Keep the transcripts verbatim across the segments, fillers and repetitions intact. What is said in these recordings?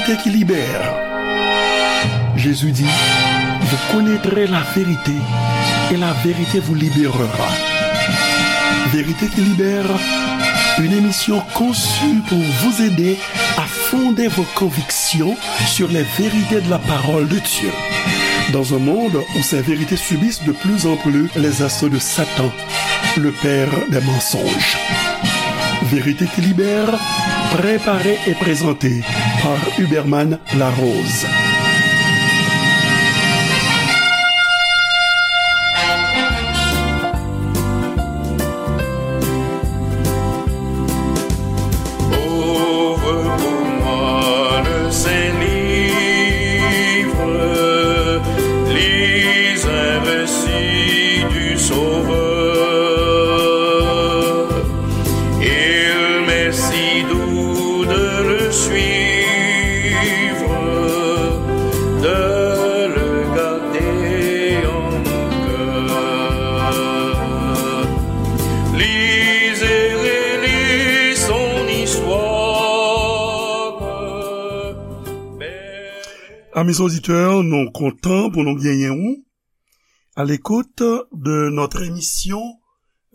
Vérité qui libère. Jésus dit, vous connaîtrez la vérité et la vérité vous libérera. Vérité qui libère, une émission conçue pour vous aider à fonder vos convictions sur les vérités de la parole de Dieu. Dans un monde où ces vérités subissent de plus en plus les assauts de Satan, le père des mensonges. Vérité qui libère, préparé et présenté par Huberman Larose. Ouvre pour moi le Saint-Livre, lis un récit du Sauveur. Il m'est si doux de le suivre, de le garder en mon cœur. Lise et relis son histoire. Amis auditeurs, nou kontan pou nou genyen ou à l'écoute de notre émission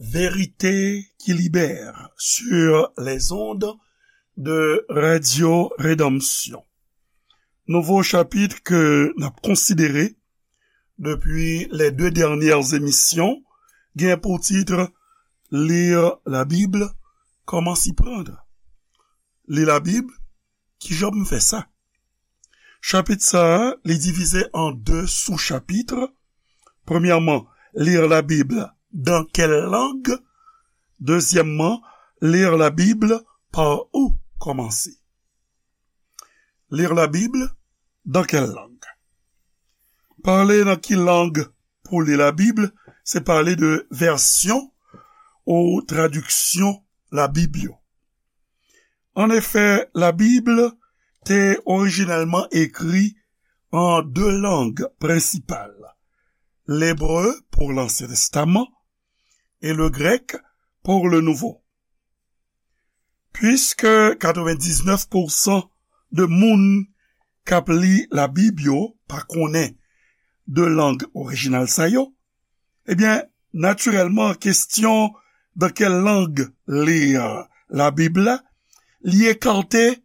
Vérité qui libère sur les ondes de Radio Rédemption. Nouvo chapit ke n ap konsidere depi les deux dernières émissions gen pou tit Lire la Bible, comment s'y prendre? Li Labib, kijan m fè sa? Chapit sa a, li divize an de sou-chapit. Premyèman, lire la Bible dans quelle langue? Dezyèmman, lire la Bible par où commencer? Lire la Bible dans quelle langue? Pale nan ki lang pou li Labib, se pale de vèsyon ou tradiksyon Labib yo. An efè, Labib te orijinèlman ekri an de lang prensipal, lebre pou Lansyen Testaman e le grèk pou le Nouvo. Puiske katrevendiznèf pousan de moun k ap li Labib yo pa konnen de lang orijinal sa yo, ebyen, natirèlman, kesyon dans quelle langue lire la Bible la, li ekate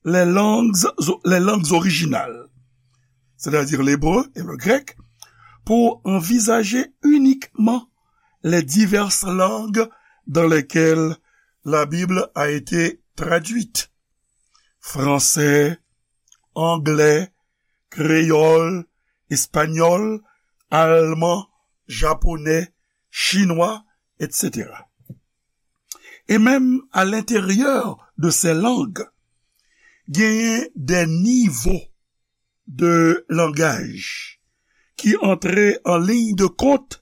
les langues, les langues originales, c'est-à-dire l'hébreu et le grec, pour envisager uniquement les diverses langues dans lesquelles la Bible a été traduite. Français, anglais, créole, espagnol, allemand, japonais, chinois, et cetera. E menm à l'intérieur de ces langues, genyen des niveaux de langage ki antre an liy de kont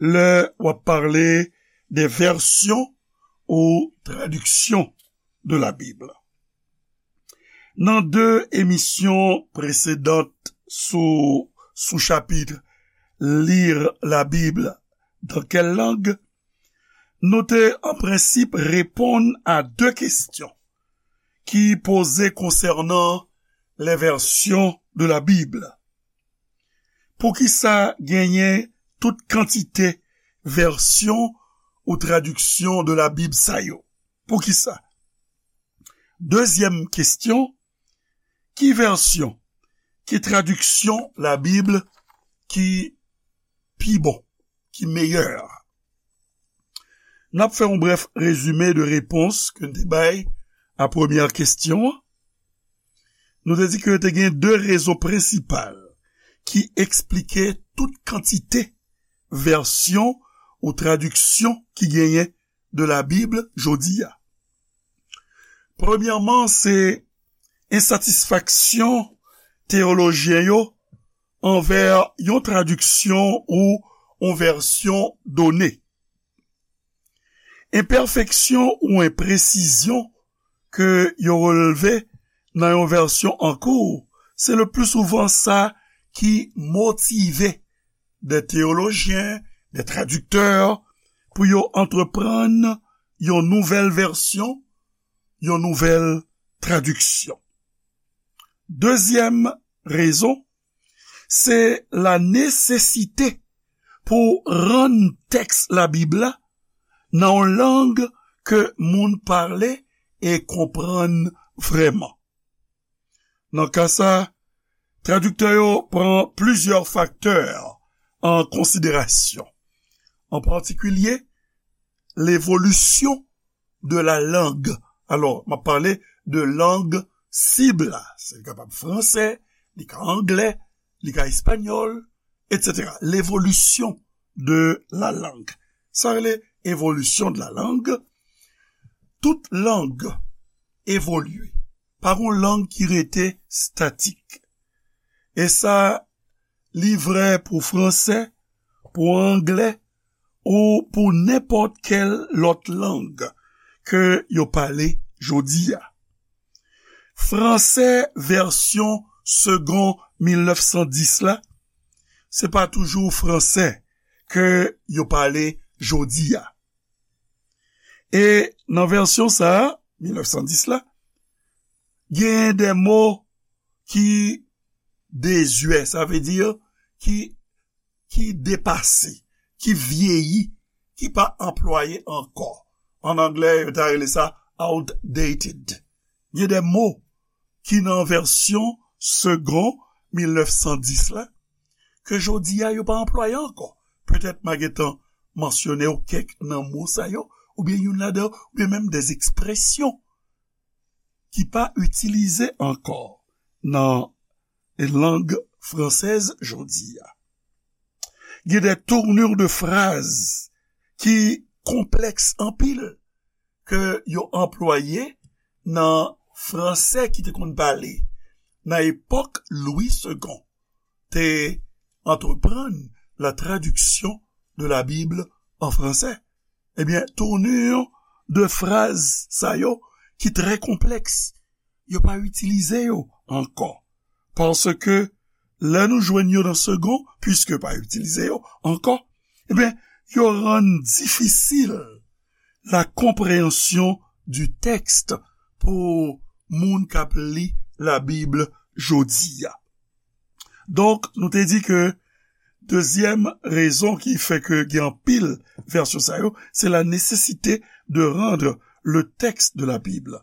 lè w ap pale de vèsyon ou tradiksyon de la Bible. Nan de emisyon presedan sou sou-chapit Lire la Bible dans quelle langue, nou te an prensip reponn a de kesyon ki poze konsènan les versions de la Bible. Poukisa genyen tout kantite vèsyon ou tradiksyon de la Bible sa yo? Poukisa? Dezyèm kesyon, ki vèsyon, ki tradiksyon la Bible ki pi bon, ki meyè? N ap fè yon brèf rezime de repons ke n te bay a premyè kesyon an. Nou te di ke te gen de rezon prensipal ki eksplike tout kantite vèsyon ou tradiksyon ki genyen de la Bible jodi a. Premyèman, se ensatisfaksyon teyolojyen yo anvè yon tradiksyon ou yon vèsyon done. Enpèfeksyon ou enpresizyon ke yo relve nan yon vèsyon an kou, se le pli souvan sa ki motive de teyolojyen, de tradiktè, pou yo antreprann yon nouvèl vèsyon, yon nouvèl tradiksyon. Dezyèm rezon, se la nesesite pou rann tèks Labib la nan yon lang ke moun pale e konprann vrèman. Nan ka sa, tradiktè yo pran plizyè faktè an konsiderasyon, an patikilye levolisyon de la langue. Alò, m ap pale de lang sib la. Se li kapab fransè, li ka anglè, li ka espanyòl, etsetera. L'évolution de la langue. Sa rele evolisyon de la langue. Tout lang evolye. Pa gon lang ki rete statik. E sa, li vrè pou fransè, pou anglè, ou pou nenpòt kèl lòt lang ke yo pale jodi a. Fransè vèsyon Segond mil nèf san dis la, se pa toujou fransè ke yo pale jodi a. E nan vèsyon sa a, mil nèf san dis la, genyen de mo ki dezyè, sa vle di ki, ki depase, ki vyeyi, ki pa anplwaye ankò. An anglè, yo ta rele sa outdated. Gen de mo ki nan vèsyon Segond mil nèf san dis la, ke jodi a yo pa anplwaye ankò. Petèt m a gentan mansyone w kèk nan mo sa yo, oubyen youn ladan, oubyen menm de ekspresyon ki pa itilize ankò nan lang fransèz jodi a. Gen de tournure de phrase ki konplèks anpil ke yo anplwaye nan fransè ki te konn pale nan epòk Lwi Segon te antreprann la traduction de la Bible en français. Ebyen, tournure de phrase sa yo ki trè konplèks, yo pa itilize yo ankò. Paske lè nou jwenn yo nan Segon, piske pa itilize yo ankò, ebyen, yo rann difisil la compréhension du texte pou moun k ap li Labib jodi a. Donk, nou te di ke dezyèm rezon ki fè ke gen anpil vèsyon sa yo, c'est la nécessité de rendre le texte de la Bible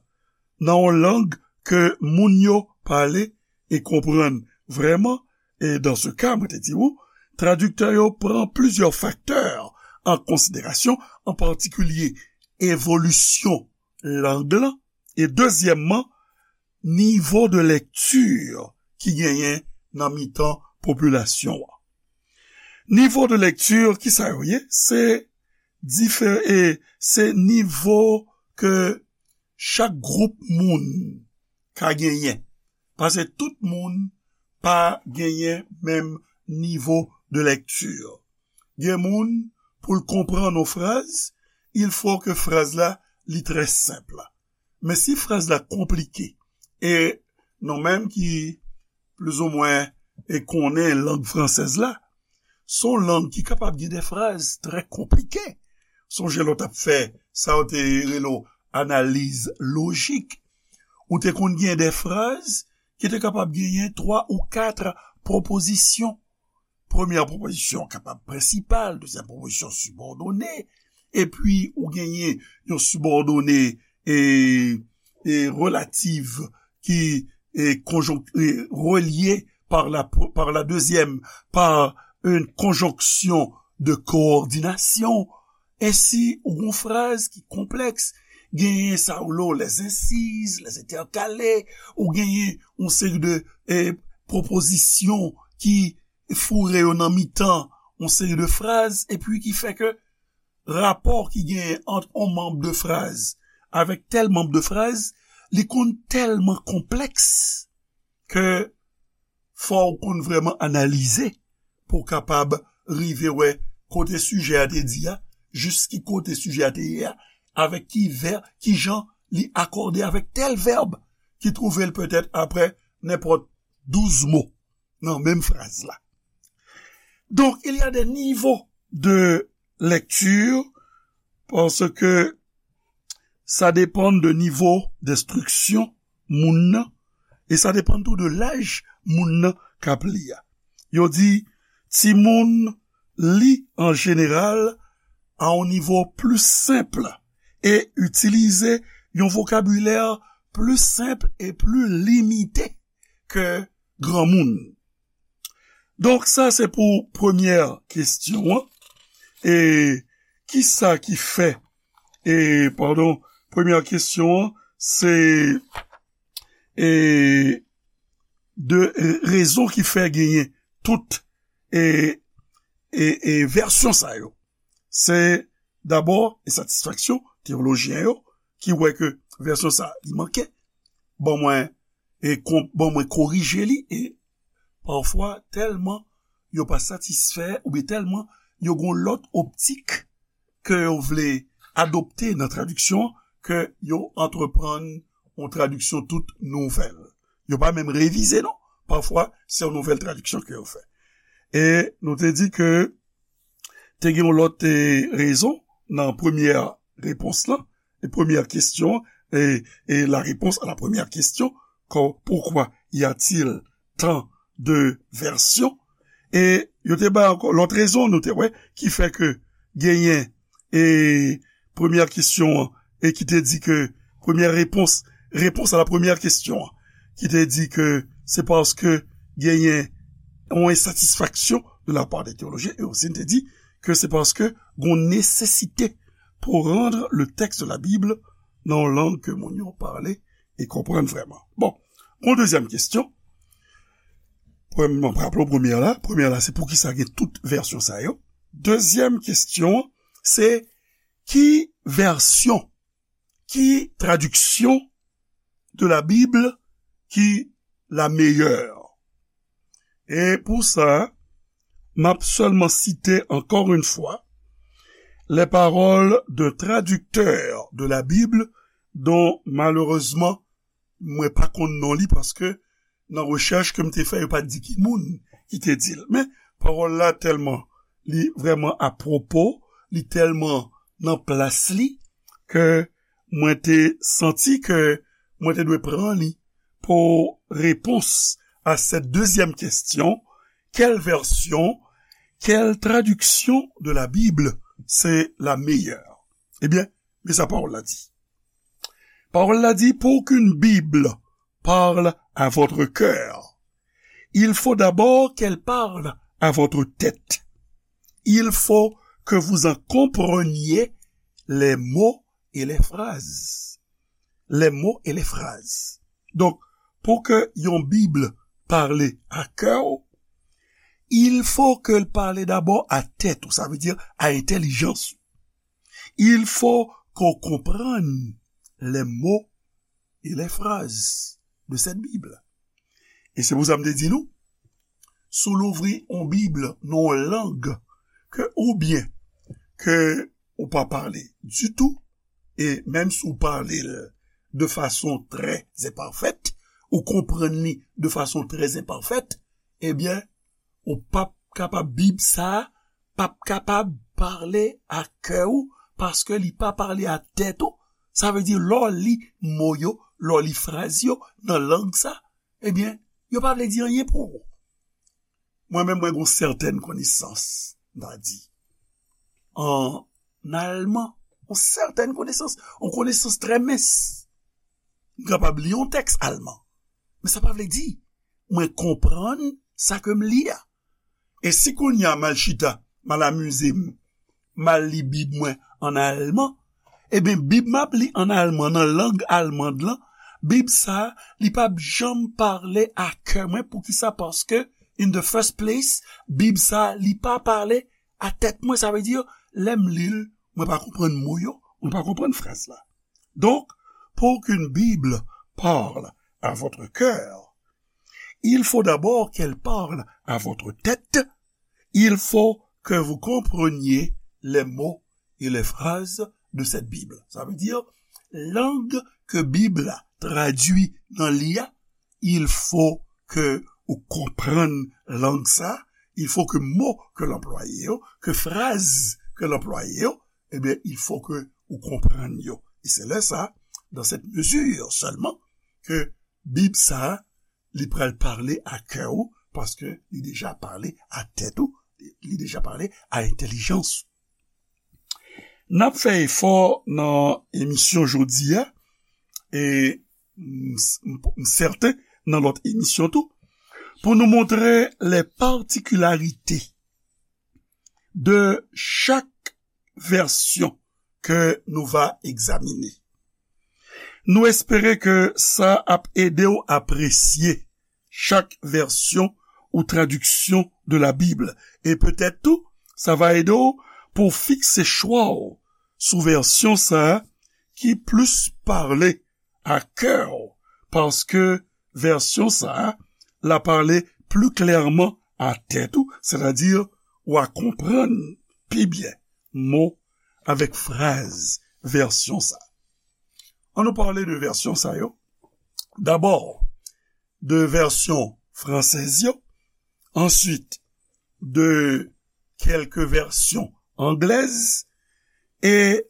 nan yon lang ke moun yo pale e konprann vrèman. E dans ce cas, mwen te di ou, tradiktè yo pran plizyè faktè an konsiderasyon, an patikilye evolisyon lang lan, e dezyèmman, nivo de lèkti ki genyen nan mitan popilasyon an. Nivo de lèkti, ki sa yo ye? Se difere, se nivo ke chak gwoup moun ka genyen. Paske tout moun pa genyen menm nivo de lèkti. Gen moun, pou l konprann yon fraz, il faut que fraz la li trè senp. Men si fraz la konplike, e nou menm ki plizoumwen e konnen lang fransèz la, se yon lang ki kapab gen de fraz trè konplike. Sonje lè w t ap fè sa yo te rele w analiz lojik, ou te konn gen de fraz ki te kapab genyen twa ou kat pwopozisyon. Premyè pwopozisyon kapab prensipal, dezyèm pwopozisyon sibòdone, epi ou genyen yon sibòdone e, e relatif ki e, konjonk-, e, relié par la, par la deuxième, par une conjonction de coordination. E si ou gon fraz ki konplèks, genyen sa ou lo les incises, les intercalés, ou genyen yon seri de e, pwopozisyon ki foure yo nan mitan yon seri de fraz, epi ki fè ke rapò ki genyen ant yon manm de fraz avèk tèl manm de fraz, li konn tèlman konplèks ke fò w konn vrèman analize pou w kapab rive wè kote sijè a te di a, jis ki kote sijè a te ye a, avèk ki vè-, ki jan li akòde avèk tèl vèb ki twouve l petèt aprè nenpòt douz mo nan menm fraz la. Donc, il y a des niveaux de lecture parce que ça dépend de nivo d'instruction moun nan E sa depann tou de laj moun nan k ap li a. Yo di, timoun li an jeneral a yon nivo pli senp e itilize yon vokabilè pli senp e pli limite ke granmoun. Donk, sa se pou premyè kesyon an. E kisa ki fè, e, padon, premyè kesyon an, se, e, de, e, rezon ki fè genyen tout, e, e, e vèsyon sa yo. Se dabò ensatisfaksyon teyolojyen yo ki wè ke vèsyon sa li manke. Ban mwen, e kon-, ban mwen korije li, e pafwa tèlman yo pa satisfè oubyen tèlman yo gon lòt optik ke yo vle adopte nan tradiksyon an, ke yo antreprann yon tradiksyon tout nouvèl. Yo pa menm revize non. Pafwa se yon nouvèl tradiksyon ke yo fè. E nou te di ke te gen yon lòt, e, rezon nan premyè repons lan, e premyè kesyon, e, e la réponse à la première question, kon, pourquoi y a-t-il tant de versions? E yo te bay ankò lòt rezon, nou te wè, ki fè ke genyen, e premyè kesyon an, e ki te di ke, premyè repons, réponse à la première question an, ki te di ke se paske genyen yon ensatisfaksyon de la part des théologiens, e osi n te di ke se paske gon nesesite pour rendre le texte de la Bible nan yon lang ke moun yo pale e konprann vrèman. Bon, yon dezyèm kesyon. Premye, m ap raple w premyè la. Premyè la, se poukisa gen tout vèsyon sa yo. Dezyèm kesyon, se ki vèsyon, ki tradiksyon de la Bible ki la meilleure? E pou sa, m ap sèlman site encore une fois les paroles d'un traducteur de la Bible dont malheureusement mwen pa konn non li paske nan rechèch ke m te fè, yo pa t di ki moun ki te di l. Men, pawòl la tèlman, li vrèman apwopo, li tèlman nan plas li, ke mwen te santi ke mwen te dwe pran li pou repons à cette deuxième question, quelle version, quelle traduction de la Bible c'est la meilleure? Ebyen, men sa pawòl la di. Pawòl la di, pour qu'une Bible parle à votre cœur, il faut d'abord qu'elle parle à votre tête. Il faut que vous en compreniez les mots et les phrases. Les mots et les phrases. Donk, pou ke yon Bib pale a kè w, il faut que l pale dabò a tèt ou, sa vle di a entèlijans ou. Il faut qu'on comprenne les mots et les phrases de cette Bible. E se pou sa m te di nou, si w louvri yon Bib nan yon lang ke oubyen ke ou pa pale ditou, e menm si w pale l de fason trè enpafèt, ou konprann li de fason trè enpafèt, ebyen, ou p ap kapab, Bib sa a p ap kapab pale a kè w, paske li pa pale a tèt ou. Sa vle di, lè w li mo yo, lè w li fraz yo nan lang sa, ebyen, yo pa vle di anyen pou ou. Mwen menm, mwen gen yon sètèn konesans, m ta di, an alman, yon sètèn konesans, yon konesans trè mens. M kapab li yon tèks alman, men sa pa vle di mwen konprann sa ke m li a. E si kounye a m al chita, m al amize m, m al li Bib mwen an alman, ebyen, Bib m ap li an alman, nan lang alman lan, Bib sa a, li p ap janm pale a kè mwen. Poukisa? Paske, in the first place, Bib sa a, li pa pale a tèt mwen. Sa vle di, lè m li l, mwen pa konprann mo yo, mwen pa konprann fraz la. Donc, pour qu'une Bible parle à votre cœur, il faut d'abord qu'elle parle à votre tête. Il faut que vous compreniez les mots et les phrases de cette Bible. Sa vle di, lang ke Bib la tradui nan li a, il faut que ou konprann lang sa, il faut que mo ke l anplwaye yo, ke fraz ke l anplwaye yo, ebyen, il faut que ou konprann yo. E se lè sa, dans cette mesure seulement, ke Bib sa a, li pral pale a kè ou, paske li deja pale a tèt ou, li deja pale a entèlijans ou. N ap fè efò nan emisyon jodi a, e m, m, m sèten nan lòt emisyon tou, pou nou montre les particularités de chaque version que nous va examiner. Nou espere ke sa ap ede w apresye chak vèsyon ou tradiksyon de la Bible. E petèt tou, sa va ede w pou w fikse chwa w sou vèsyon sa a ki plis pale a kè w, paske vèsyon sa a, la pale pli klèman a tèt ou, sètadi w a konprann pi byen mo avèk fraz vèsyon sa a. An nou pale de vèsyon sa yo. Dabò, de vèsyon fransèz yo, answit de kèlke vèsyon anglèz, e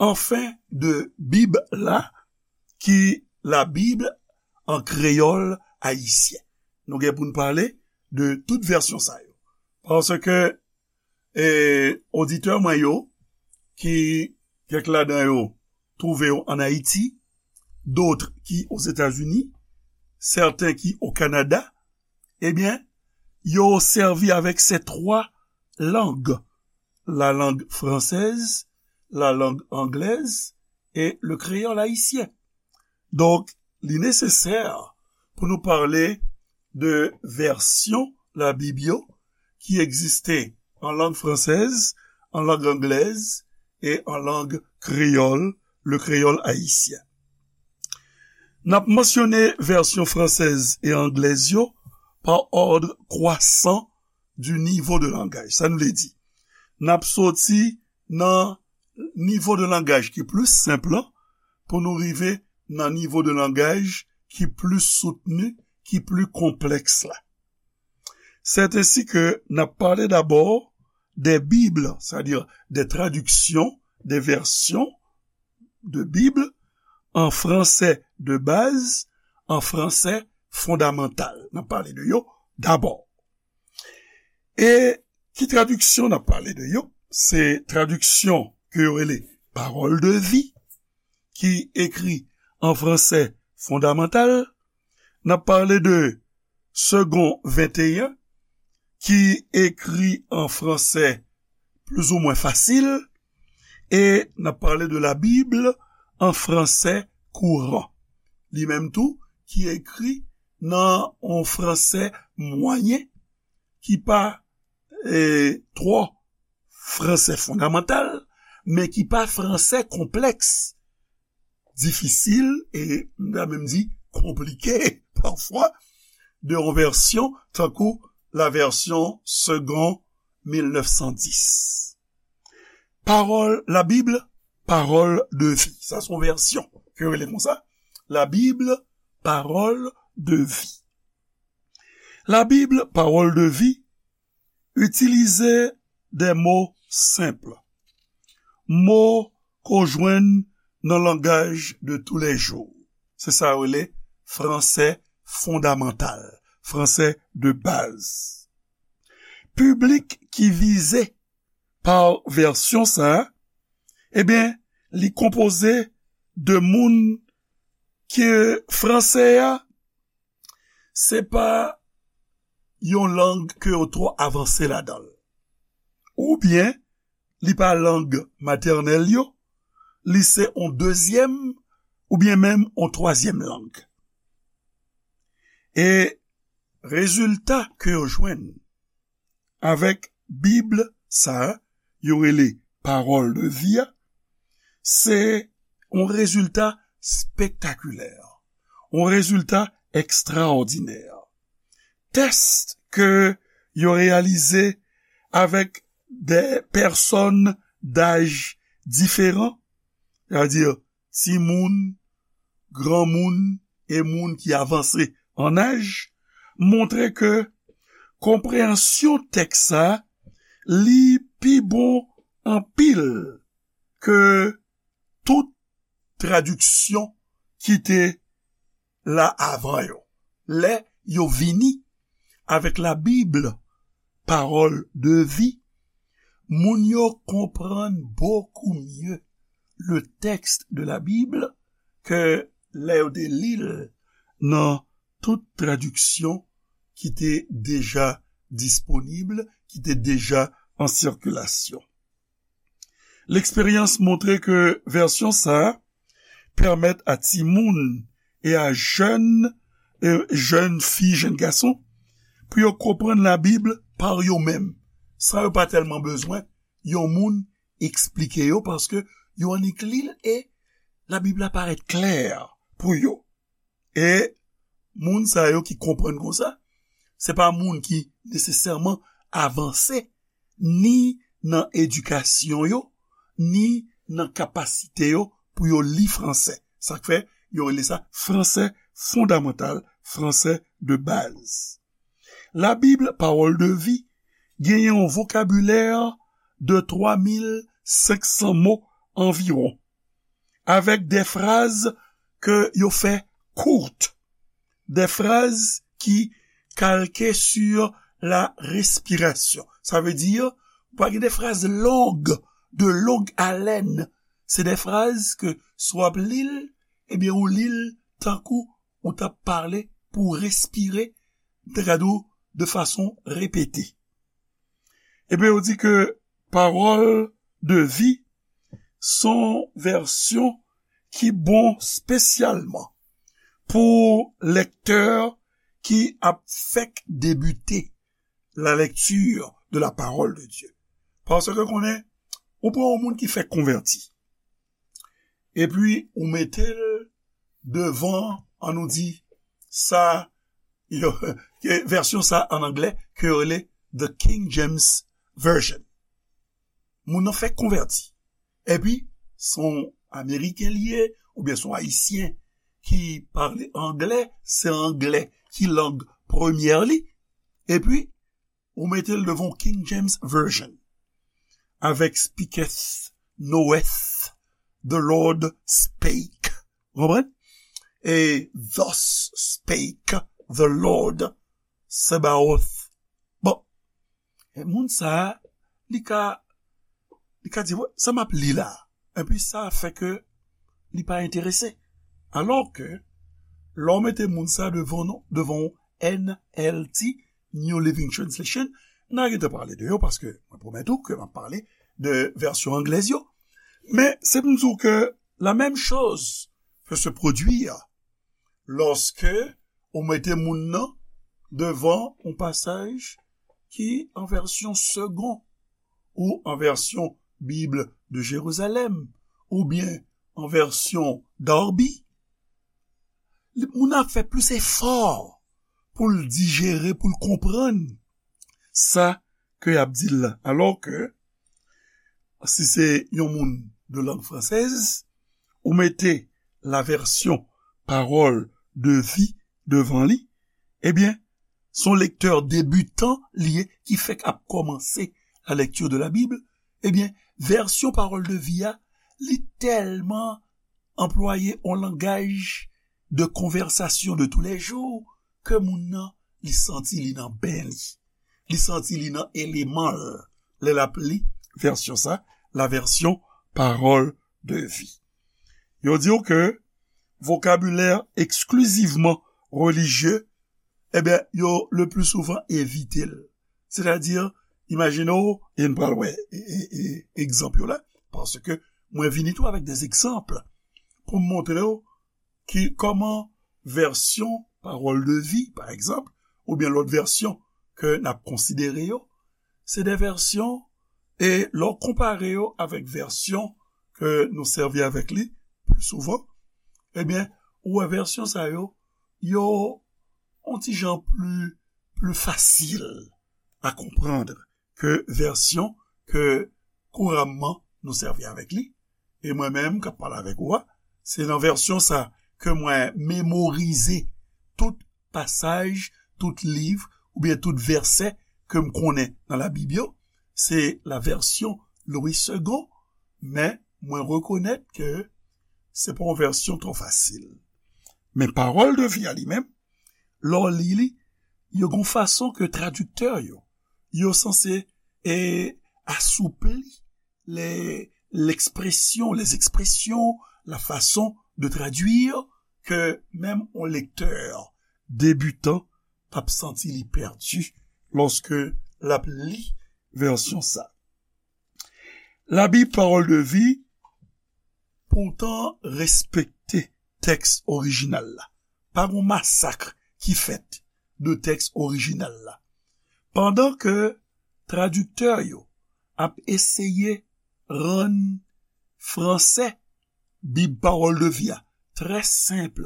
anfen de Bib la, ki la Bible en créole haïtien. Nou gen pou n pale de tout vèsyon sa yo. Paske e, oditè mwen yo, ki kèk ladan yo twouve yo ann Ayiti, dòt ki Ozetazini, sèten ki o Kanada, ebyen, yo sèvi avèk se twa lang, la langue française, la langue anglaise et le créole haïtien. Donk, li nesesè pou nou pale de vèsyon Labib yo ki egziste an lang fransèz, an lang anglèz e an lang kreyòl, le créole haïtien. N ap mansyone vèsyon fransèz e anglèz yo pa òd kwasan du niveau de langaj. Sa n vle di, n ap soti nan nivo de langaj ki plis senp lan pou nou rive nan nivo de langaj ki plis soutni, ki plis konplèks la. C'est ainsi que n ap pale dabò des Bibles, c'est-à-dire des traductions, des versions de Bible en français de base, en français fondamental. N ap pale de yo dabò. E ki tradiksyon n ap pale de yo? Se tradiksyon ke yo rele Parole de vie, ki ekri an fransè fondamantal. N ap pale de Segond venteyen, ki ekri an fransè plizoumwen fasil, e n ap pale de la Bible en français courant. Li menm tou, ki ekri nan yon fransè mwayen, ki pa, e, twò fransè fondamantal, men ki pa fransè konplèks, difisil, e m ta menm di konplike pafwa, de yon vèsyon tankou la version Segond mil nèf san dis. Pawòl, la Bible, parole de vie. Sa se yon vèsyon ke yo rele konsa. La Bible, parole de vie. La Bible, parole de vie, itilize de mo senp. Mo ke w jwenn nan langaj de tous les jours. Se sa yo rele fransè fondamantal, fransè de baz. Piblik ki vize pa vèsyon sa a, ebyen, li konpoze de moun ke fransè a, se pa yon lang ke yo twò avanse ladan l. Oubyen, li pa lang matènèl yo, li se yon dezyèm oubyen menm yon twazyèm lang. E rezilta ke yo jwenn avèk Bib sa a, yo rele Parole de vie a, se yon rezilta spektakilè, yon rezilta ekstraòdinè. Tès ke yo reyalize avèk de pèsòn daj diferan, sètadi timoun, granmoun e moun ki avanse an aj, montre ke konpreyansyon tèks sa a, li pi bon anpil ke tout tradiksyon ki te la avan yo. lè yo vini avèk Labib, Parole de vie, moun yo konprann beaucoup mieux le texte de la Bible ke lè yo te li l nan tout tradiksyon ki te deja disponib, ki te deja an sikilasyon. Leksperyans montre ke vèsyon sa a pèmèt a timoun e a jèn, e jèn fi, jèn gason, pou yo konprann Labib pa yo menm, san yo pa tèlman bezwen yon moun eksplike yo, paske yo annik li l e Labib la parèt klè pou yo. E moun sa yo ki konprann konsa, se pa moun ki nesesèman avanse ni nan edikasyon yo, ni nan kapasite yo pou yo li fransè. Sa k fè yo rele sa fransè fondamantal, fransè de baz. Labib, Parole de vie, genyen yon vokabilè de twa mil senk san mo anviwon, avèk de fraz ke yo fè kout, de fraz ki kalke sur la respiration. Sa vle di, ou pa gen de fraz long, de long haleine. Se de fraz ke si w ap li l, ebyen, ou li l tankou ou t ap pale pou w respire, m te ka di w, de fason repete. Ebyen, yo di ke Parole de vie se yon vèsyon ki bon espesyalman pou lektè ki ap fèk debite la lecture de la parole de Dieu. Paske konnen, ou pran yon moun ki fèk konvèti, epi ou mete l devan, an nou di, sa, yo, ke vèsyon sa an anglè, ke yo rele The King James Version. Moun nan fèk konvèti. Epi, se yon Ameriken li ye, oubyen se yon Ayisyen ki pale anglè, se anglè ki lang premyè li. Epi, ou mete l devan King James Version, avèk speaketh, knoweth, the Lord spake. Ou konprann? E thus spake the Lord Sabaoth. Bon, e moun sa a, li ka, li ka di, "Wè, sa m ap li la." Epi sa fè ke li pa enterese. Alò ke, lè w mete moun sa devan nou, devan yon N L T, New Living Translation, n a gentan pale de yo, paske mwen pwomèt ou ke m ap pale de vèsyon anglèz yo. Men, se pou m di w ke la menm choz peut se produire lòske ou mete moun nan devan yon pasaj ki an vèsyon Segond, ou an vèsyon Bible de Jérusalem, oubyen an vèsyon Darby. Li, moun nan ap fè plis efò pou l dijere, pou l konprann sa ke y ap di l la. Alò ke, si se yon moun de langue française, ou mete la version Parole de vie devan li, ebyen, se yon lektè debitan li ye, ki fèk ap kòmanse la lecture de la Bible, ebyen, vèsyon Parole de vie a, li tèlman anplwaye yon langaj de konvèsasyon de tou lè jou ke moun nan, li santi li nan ben li. Li santi li nan eleman l lè l ap li vèsyon sa, la version Parole de vie. Yo di w ke vokabilè eksklizivman relijye, ebyen, yo le pli souvan evite l. Sètadi, imajine w, e n pral wè, e, e, e, egzanp yo la, paske mwen vini tou avèk de egzanp pou m montre w ki kòman vèsyon Parole de vie, pa egzanp, oubyen lòt vèsyon ke n ap konsidere yo, se de vèsyon, e lè w konpare yo avèk vèsyon ke nou sèvi avèk li pli souvan, ebyen, ou wè vèsyon sa yo, yo yon ti jan pli, pli fasil a konprann ke vèsyon ke kouramman nou sèvi avèk li. E mwen menm k ap pale avèk ou a, se nan vèsyon sa ke mwen memorize tout pasaj, tout liv, oubyen tout vèsè ke m konnen nan Labib yo. Se la version Louis Segond, men mwen rekonèt ke se pa yon vèsyon twò fasil. Men Parole de vie a li menm, lè w li li, yo gon fason ke tradiktè yo, yo sanse, e, asoupli les, l'expression, les expressions, la façon de traduire, ke menm yon lektè debitan p ap santi li pèdi lòske l ap li vèsyon sa. Labib Pawòl de Vi poutan respekte tèks orijinal la. Pa gon masak ki fèt de tèks orijinal la. Pandan ke tradiktè yo ap eseye rann franse Bib Pawòl de Vi a trè senp,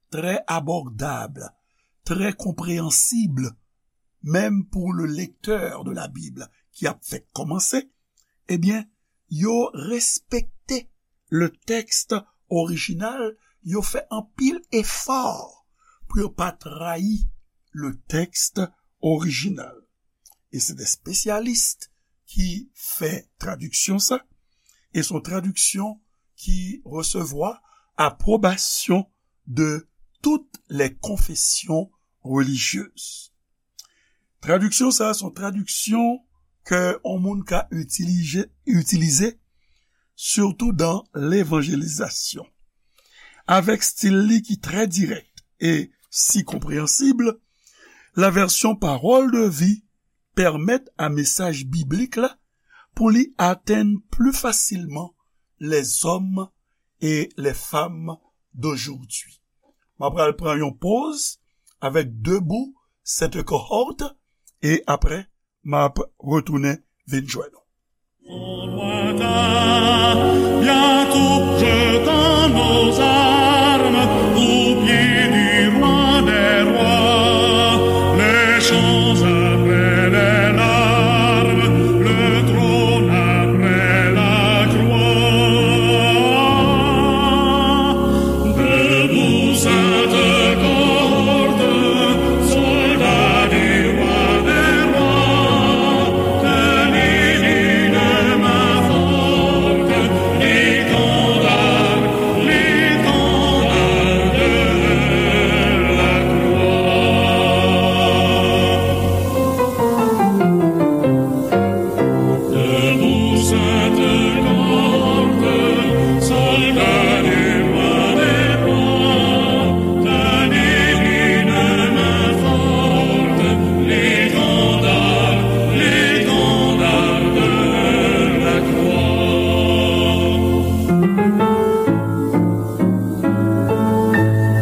trè abòdab, trè konpreyansib, menm pou le lecteur de la Bible ki ap fèk kòmanse, ebyen, yo respekte le tèks orijinal, yo fè anpil efò pou yo pa trayi le tèks orijinal. E se de spesyalis ki fè tradiksyon sa, e se yon tradiksyon ki resevwa apwobasyon de toutes les confessions religieuses. Tradiksyon sa a se yon tradiksyon ke yon moun ka itilize, itilize, sitou dan levanjelizasyon. Avèk stil li ki trè dirèk e si konpreyansib, la vèsyon Pawòl de Vi pèmèt a mesaj biblik la pou li atenn pli fasilman les hommes et les femmes d'aujourd'hui. M ap pral pran yon poz avèk Debout cette cohorte e apre m ap retounen vin jwenn nou. Bientôt jetons nos armes aux pieds du roi des rois. Les chants après les larmes, le trône après la croix. Debout, sainte cohorte, soldats du roi des rois, tenez d'une main forte l'étendard, l'étendard de la croix. Debout, sainte cohorte, soldats du roi des rois, tenez d'une main forte l'étendard, l'étendard de la croix.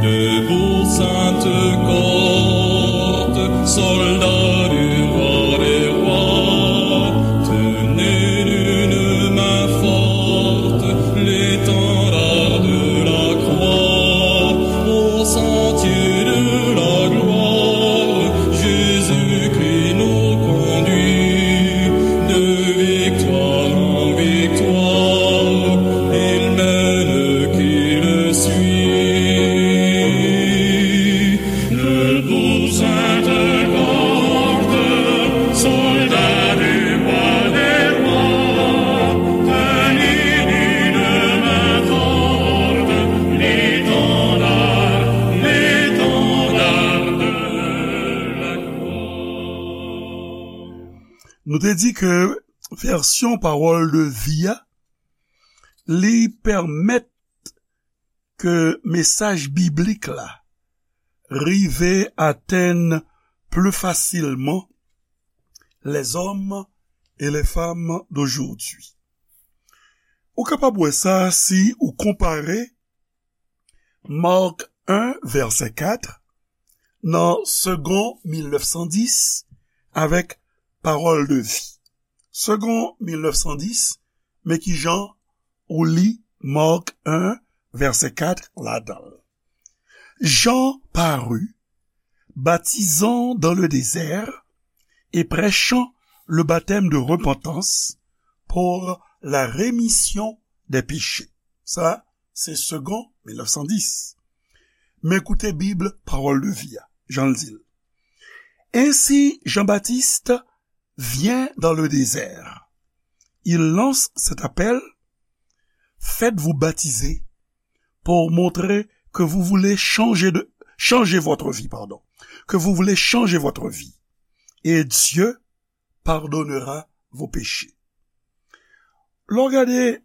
Debout, sainte cohorte, soldats du roi des rois, tenez d'une main forte l'étendard de la croix. Au sentier de la gloire, Jésus-Christ nous conduit de victoire en victoire, il mène qui le suit. Debout, sainte cohorte, soldats du roi des rois, tenez d'une main forte l'étendard, l'étendard de la croix. Nou te di ke vèsyon Pawòl de Vi a, li pèmèt ke mesaj biblik la rive atenn pli fasilman les hommes et les femmes d'aujourd'hui. Ou kapab wè sa si ou konpare Mark en, vèsè kat, nan Segond mil nèf san dis avèk Pawòl de Vi. Segond mil nèf san dis, men ki jan ou li Mark en, vèsè kat ladan l. Jean parut, baptisant dans le désert et prêchant le baptême de repentance pour la rémission des péchés. Sa, se Segond mil nèf san dis. Men koute Bib Pawòl de Vi a, jan l di l. Ainsi, Jean-Baptiste vient dans le désert. Il lance cet appel, faites-vous baptiser pour montrer que vous voulez changer de, changer votre vie, pardon. que vous voulez changer votre vie, et Dieu pardonnera vos péchés. Lè w gade,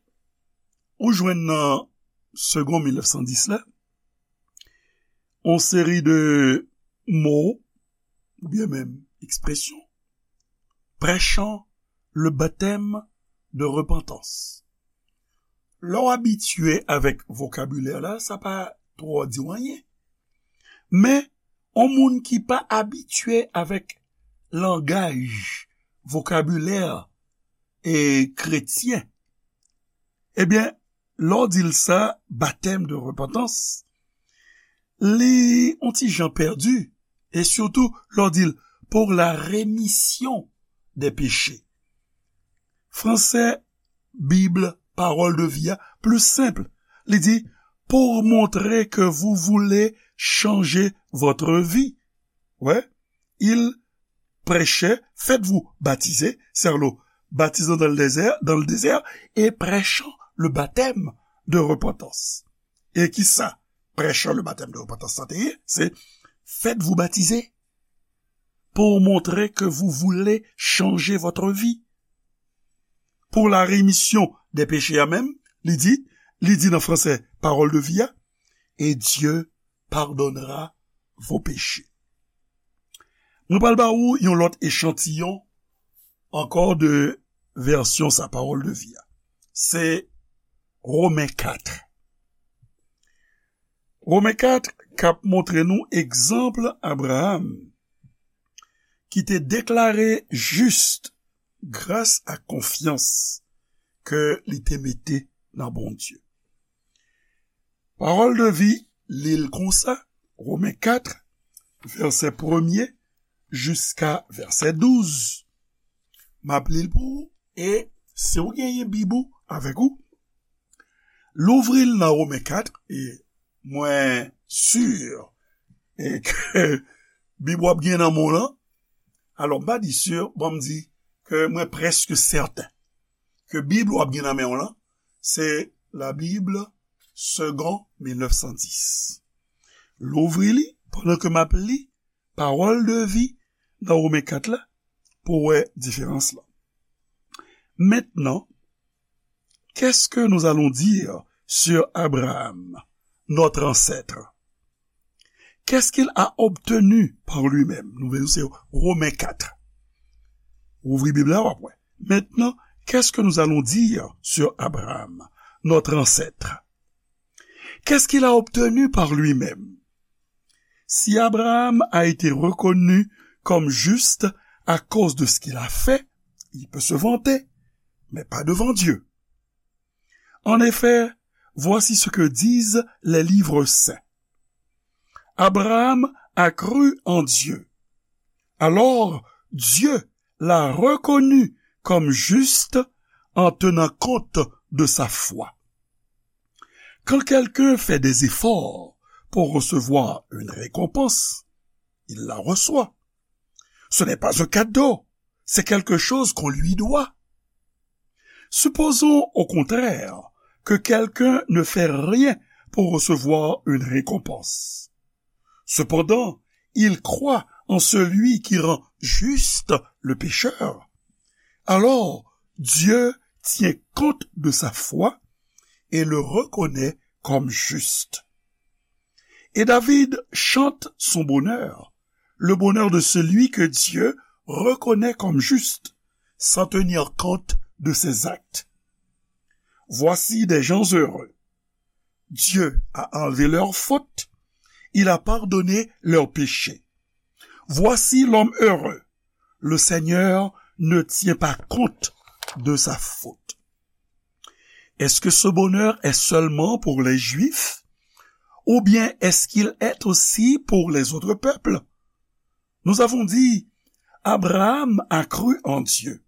ou jwenn nan Segond mil nèf san dis la, yon seri de mo, oubyen menm ekspresyon, prêchant le baptême de repentance. Lè w abitye avèk vokabilè la, sa pa twò di w anyen. Men, yon moun ki pa abitye avèk langaj, vokabilè, e, kretyen, ebyen, lè w di l sa, batèm de repantans, li yon ti jan pèdi, e sitou lè w di l pour la rémission des péchés. Fransè, Bib, Parole de vie a, plis senp. Li di, pour montrer que vous voulez changer votre vie. Ouais. Il prêchait, faites-vous baptiser, c'est-à-dire baptisant dans le désert, dans le désert, et prêchant le baptême de repentance. E kisa prêchant le baptême de repentance sa te ye? Se faites-vous baptiser pour montrer que vous voulez changer votre vie. Pour la rémission des péchés a menm, li di, li di nan fransè, Parole de vie a, et Dieu pardonnera vos péchés. Mwen pral ba ou yon lòt echantiyon ankò de vèsyon sa, Parole de vie a. Se Women kat. Women kat k ap montre nou egzanp Abraram ki te deklare jis gras a konfyans ke li te mete nan Bondye. Parole de vie li l konsa, Women kat, vèsè premye jiska vèsè douz. M ap li l pou ou, e si w genyen Bib ou avèk ou, louvri l nan Women kat, e mwen si, e, ke Bib w ap gen nan men w lan. Alò, m pa di si, bon, m di ke mwen prèske sèten ke Bib w ap gen nan men w lan, se la Bible Segond mil nèf san dis. Louvri li pandan ke m ap li Parole de vie nan Women kat la pou w wè diferans lan. Maintenant, qu'est-ce que nous allons dire sur Abraham, notre ancêtre? Qu'est-ce qu'il a obtenu par lui-même? Nou vle se Women kat. Ouvri Bib la, w ap wè. Maintenant, qu'est-ce que nous allons dire sur Abraham, notre ancêtre? Qu'est-ce qu'il a obtenu par lui-même? Si Abraham a été reconnu comme juste à cause de ce qu'il a fait, il peut se vanter, mais pas devant Dieu. En effet, voici ce que disent les livres saints. Abraham a cru en Dieu. Alors, Dieu l'a reconnu comme juste en tenant compte de sa foi. Quand quelqu'un fait des efforts pour recevoir une récompense, il la reçoit. Ce n'est pas un cadeau, c'est quelque chose qu'on lui doit. Supposons au contraire que quelqu'un ne fait rien pour recevoir une récompense. Cependant, il croit en celui qui rend juste le pécheur. Alors, Dieu tient compte de sa foi et le reconnaît comme juste. Et David chante son bonheur, le bonheur de celui que Dieu reconnaît comme juste, sans tenir compte de ses actes. Voici des gens heureux. Dieu a enlevé leurs fautes, il a pardonné leurs péchés. Voici l'homme heureux. Le Seigneur ne tient pas compte de sa faute. Est-ce que ce bonheur est seulement pour les Juifs? Ou bien est-ce qu'il est aussi pour les autres peuples? Nous avons dit, Abraham a cru en Dieu.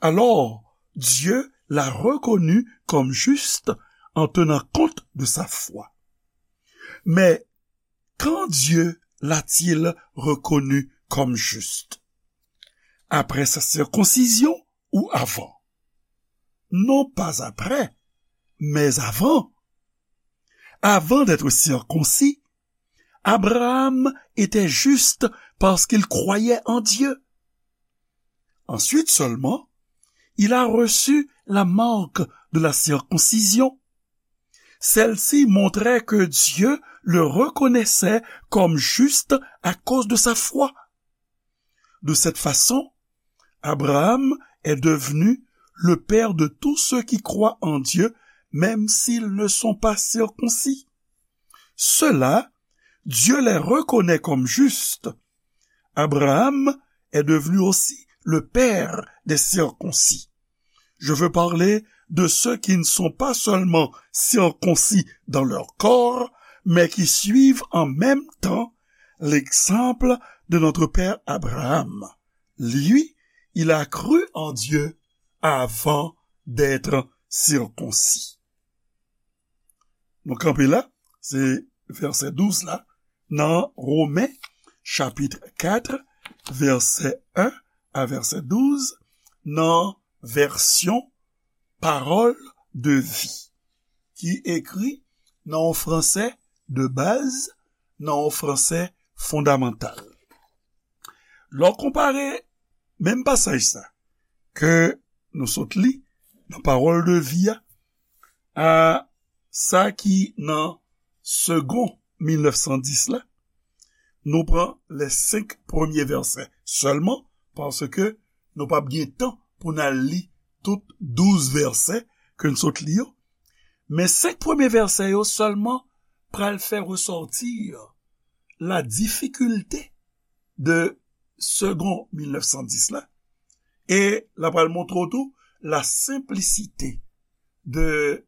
Alors, Dieu l'a reconnu comme juste en tenant compte de sa foi. Mais quand Dieu l'a-t-il reconnu comme juste? Après sa circoncision ou avant? Non pas après, mais avant. Avant d'être circoncis, Abraham était juste parce qu'il croyait en Dieu. Ensuite seulement, il a reçu la marque de la circoncision. Celle-ci montrait que Dieu le reconnaissait comme juste à cause de sa foi. De cette façon, Abraham est devenu le père de tous ceux qui croient en Dieu, même s'ils ne sont pas circoncis. Ceux-là, Dieu les reconnaît comme justes. Abraham est devenu aussi le père des circoncis. Je veux parler de ceux qui ne sont pas seulement circoncis dans leur corps, mais qui suivent en même temps l'exemple de notre père Abraham. Lui, il a cru en Dieu avant d'être circoncis. Nou kanpe la, se vèsè douz la, nan Women, chapit kat, vèsè en a vèsè douz, nan vèsyon Parole de Vie, ki ekri nan yon franse de baz, nan yon franse fondamantal. Lè w konpare menm pasaj sa ke nou sot li nan Parole de Vie a, a sa ki nan Segond mil nèf san dis la, nou pran les senk premye vèsè sèlman, paske nou p ap gen tan pou n al li tout douz vèsè ke n sot li yo. Men senk premye vèsè yo sèlman pral fè resòti la difikilte de Segond mil nèf san dis la, e l ap pral montre w tou la senplisite de,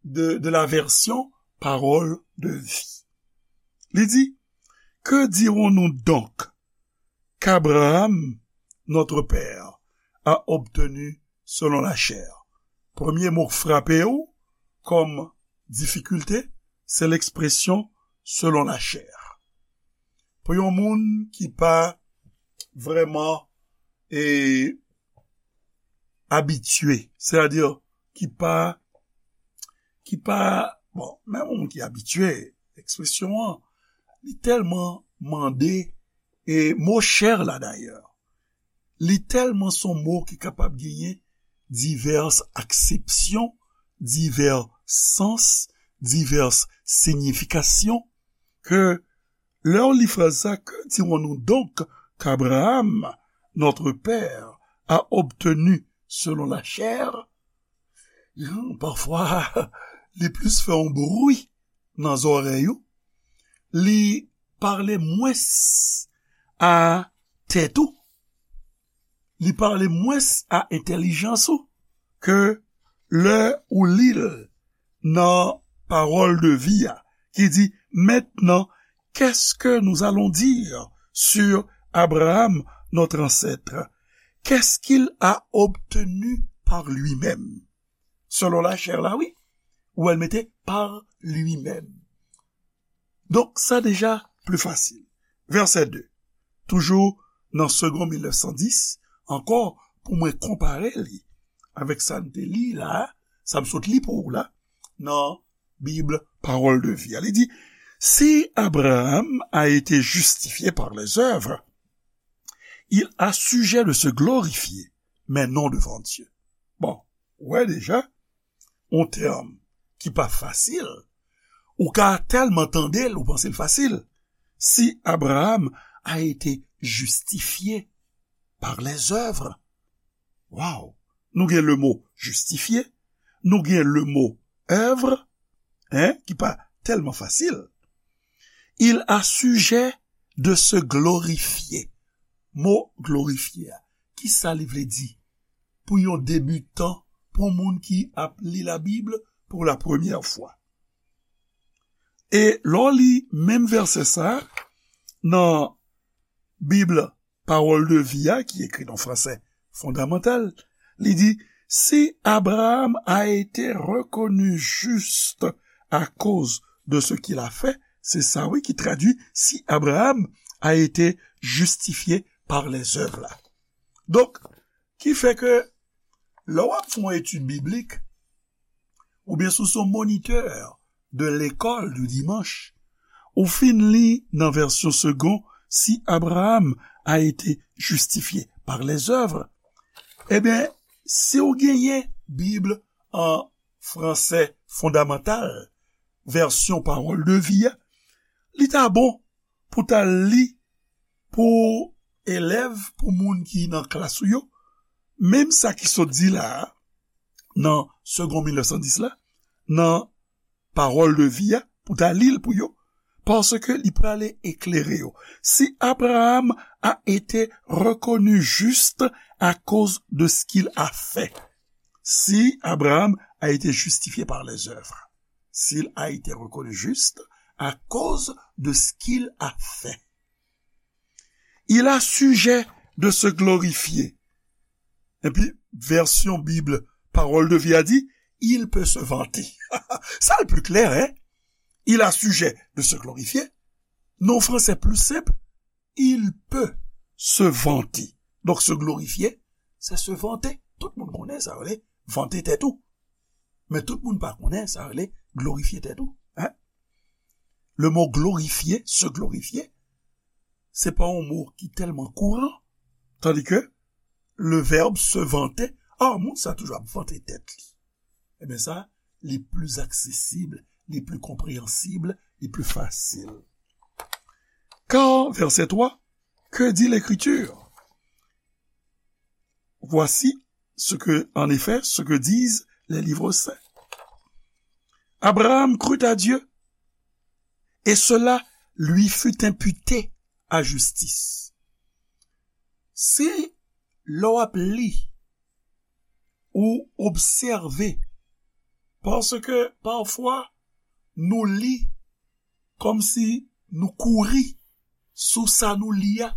de, de la version Parole de Vie. Li di, Que dirons-nous donc qu'Abraham, notre père, a obtenu selon la chair? Premye mo k frape w kòm difikilte, se lekspresyon selon la chair. Pou yon moun ki pa vrèman e, abitye, sètadi ki pa, ki pa, bon, menm yon moun ki abitye, ekspresyon an, li tèlman mande, e mo chè la dayè, li tèlman se yon mo ki kapab genyen divès aksepsyon, divès sans, divès siyifikasyon, ke lè w li fraz sa, Que dirons-nous donc qu'Abraham, notre père, a obtenu selon la chair? Pafwa, li plis fè yon bri nan zòrèy ou, li pale mwens a tèt ou, li pale mwens a entèlijans ou ke lè ou li l nan Parole de Vie a, ki di, Maintenant, qu'est-ce que nous allons dire sur Abraham, notre ancêtre? Qu'est-ce qu'il a obtenu par lui-même? Selon la chair la, wi. Ou wè l mete par lui-même. Donk, sa deja pli fasil. Vèsè de. Toujou nan Segond mil nèf san dis, ankò, pou mwen konpare li avèk sa n te li la, sa m sot li pou ou la, nan Bib Parole de Vie a. Li di, Si Abraham a été justifié par les œuvres, il a sujet de se glorifier, mais non devant Dieu. Bon, ou wè deja, yon tèm ki pa fasil, ou ka tèlman tande l, ou panse l fasil. Si Abraham a été justifié par les œuvres. Waw! Nou gen le mo justifié, nou gen le mo œuvre, hein, ki pa tèlman fasil. Il a sujet de se glorifier. Mo glorifye a, ki sa li vle di? Pou yon debitan, pou yon moun ki ap li Labib pou la premyè fwa. E lè w li menm vèsè sa a, nan Bib Parole de Vie a, ki ekri nan franse fondamantal, li di, Si Abraham a été reconnu juste à cause de ce qu'il a fait, se sa wi ki tradui, Si Abraham a été justifié par les œuvres la. Donk, ki fè ke lè w ap fè yon etid biblik, oubyen si w se yon monitè de lekòl di dimanch, Ou fin li nan vèsyon Segond, si Abraham a été justifié par les œuvres, ebyen, si w genyen Bib an fransè fondamantal, vèsyon Pawòl de Vi a, li ta bon pou ta li pou elèv, pou moun ki nan klas ou yo, menm sa ki sot di la a, nan Segond mil nèf san dis la, nan Pawòl de Vi a, pou ta li l pou yo, paske li prale eklere yo. Si Abraham a été reconnu juste à cause de ce qu'il a fait. Si Abraham a été justifié par les œuvres. S'il a été reconnu juste à cause de ce qu'il a fait. Il a sujet de se glorifier. Epi, vèsyon Bib Pawòl de Vi a di, il peut se vanter. Sa l pi klè, hein? Il a sujet de se glorifier. Nan fransè pli senp, il peut se vanter. Donk, se glorifiye, se se vante. Tout moun konnen sa rele vante tèt ou. Men tout moun pa konnen sa rele glorifye tèt ou. Hein? Le mot glorifier, se glorifye, se pa yon mo ki tèlman kouran, tandi ke le verbe se vanter, ah, moun sa toujou ap vante tèt li. Ebyen sa, li pli aksesib, li pli konpreyansib, li pli fasil. Car, verset trois, que dit l'Écriture? Voici ce que, en effet, ce que disent les livres saints. Abraham crut à Dieu, et cela lui fut imputé à justice. Si lè w ap li, ou obsève, paske pafwa nou li kòmsi nou kouri sou sa nou li a,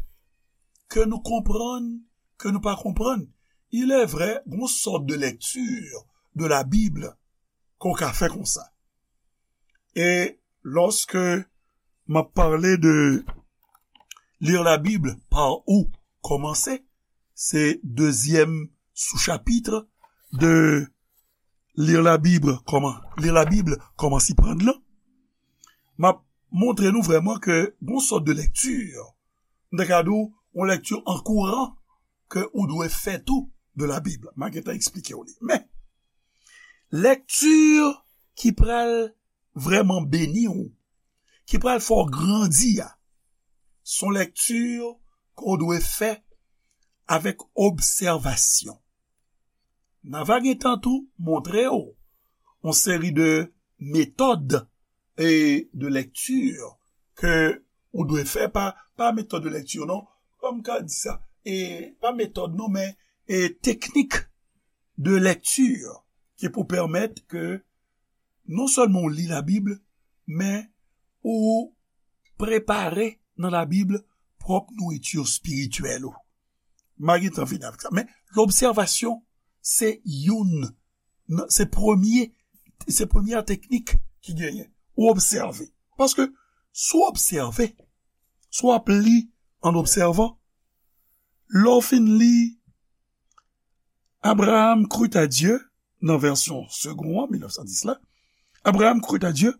ke nou konprann, ke nou pa konprann. Il est vrai, gon sòt de lecture de la Bible ke w ka fè konsa. E lòske m ap pale de lire la Bible par où commencer, se dezyèm sou-chapitre de lire la Bible, comment, lire la Bible, comment s'y prendre lan. M ap montre nou vrèman ke gon sòt de lèkti, m ta ka di w, yon lèkti an kouran ke ou dwe fè tou de la Bible. M a gentan eksplike w li. Men, lèkti ki pral vrèman beni w, ki pral fè w grandi a, se yon lèkti ke w dwe fè avèk obsèvasyon. N a va gentan tou montre w yon seri de metòd e de lèkti ke ou dwe fè pa, pa metòd de lèkti non, kòm m ka di sa, e pa metòd non, men e teknik de lèkti ki pou pèmèt ke non sèlman w li Labib, men ou prepare nan Labib pwòp nouriti espirityèl ou. M a gentan vini avèk sa. Men lobsèvasyon, se youn nan, se premye, se premyè teknik ki genyen. Ou obsève. Paske si w obsève, si w ap li an obsèvan, lè w fin li Abraham crut à Dieu, nan vèsyon Segond an, mil nèf san dis la, Abraham crut à Dieu,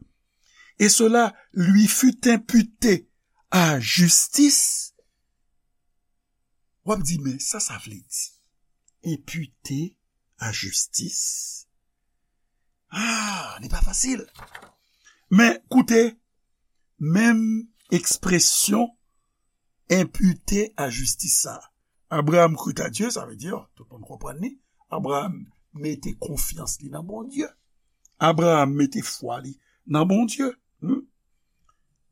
et cela lui fut imputé à justice. W ap di, men sa sa vle di? Imputé à justice? Ah, li pa fasil. Men koute, menm ekspresyon imputé à justice sa. Abraham crut à Dieu, sa vle di, tout moun konprann li, Abraham mete konfyans li nan Bondye. Abraham mete fwa li nan Bondye. Hmm?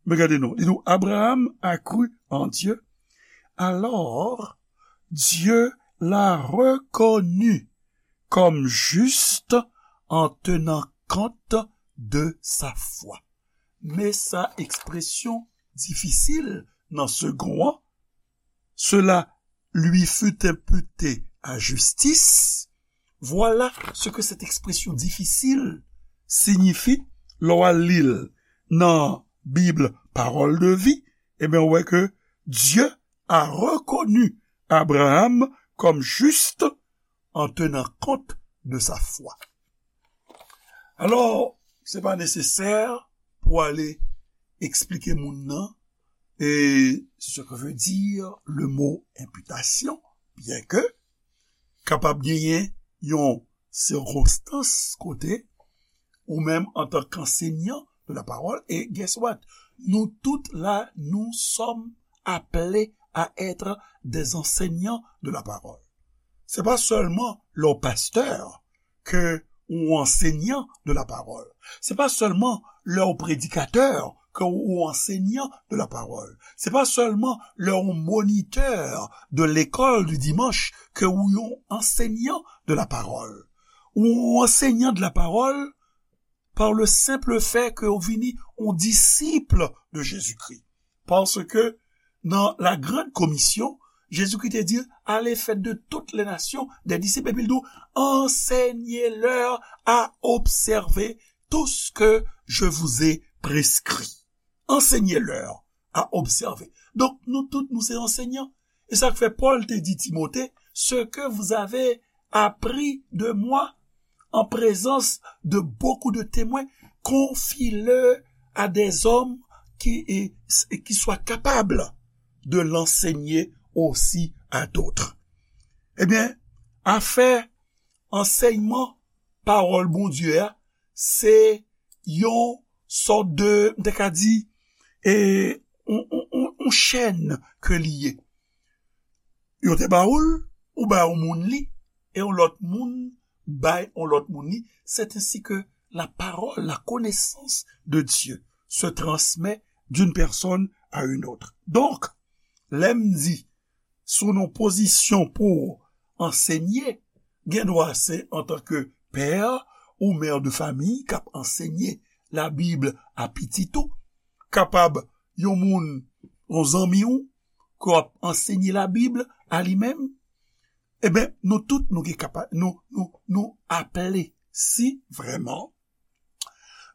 Men gade non, li di w, Abraham a cru en Dieu, alors Dieu l'a reconnu comme juste en tenant compte de sa foi. Men sa ekspresyon difisil nan Segond an, cela lui fut imputé à justice. Voilà ce que cette expression difficile signifie lè w al li l nan Bib Pawòl de Vi. Ebyen, ou wè ke Dieu a reconnu Abraham comme juste en tenant compte de sa foi. Alò, se pa nesesè pou ale eksplike moun nan, e ce que veut dire le mot imputation, byen ke kapab genyen yon sikonstans kote ou menm antan k ansenyan de la parole, et guess what? Nous toutes là, nous sommes appelés à être des enseignants de la parole. Se pa sèlman lè w pastè ke ou ansenyan de la parole. Se pa sèlman lè w predikatè ke ou ansenyan de la parole. Se pa sèlman lè w monitè de l'école du dimanche ke ou yon ansenyan de la parole. Ou ansenyan de la parole par le simple fait ke ou vini yon disip de Jezikri. Paske nan la grande commission, Jezikri te di, allez, faites de toutes les nations des disciples. Epi l di, enseignez-leur à observer tout ce que je vous ai prescrit. Enseignez-leur à observer. Donk, nou tout, nou se ansenyan. E sa k fè Pòl te di Timote, ce que vous avez appris de moi en présence de beaucoup de témoins, confie-le à des hommes qui, et, et qui soient capables de l'enseigner aussi à d'autres. Ebyen, afè ansèyman pawòl Bondye a, se yon sòt de, m te ka di, e, yon, yon, yon, yon chèn ke li ye. Yo te ba ou l, ou bay yon moun li, e yon lòt moun bay yon lòt moun li. C'est ainsi que la parole, la connaissance de Dieu se transmet d'une personne à une autre. Donk, lè m di, sou yon pozisyon pou ansenye, gen dwa se antanke pè ou mè de famiy k ap ansenye Labib a pitit ou, kapab yon moun, yon zanmi w, ke w ap ansenye Labib a li menm. Eben, nou tout, nou gen kapa-, nou, nou, nou aple, si vrèman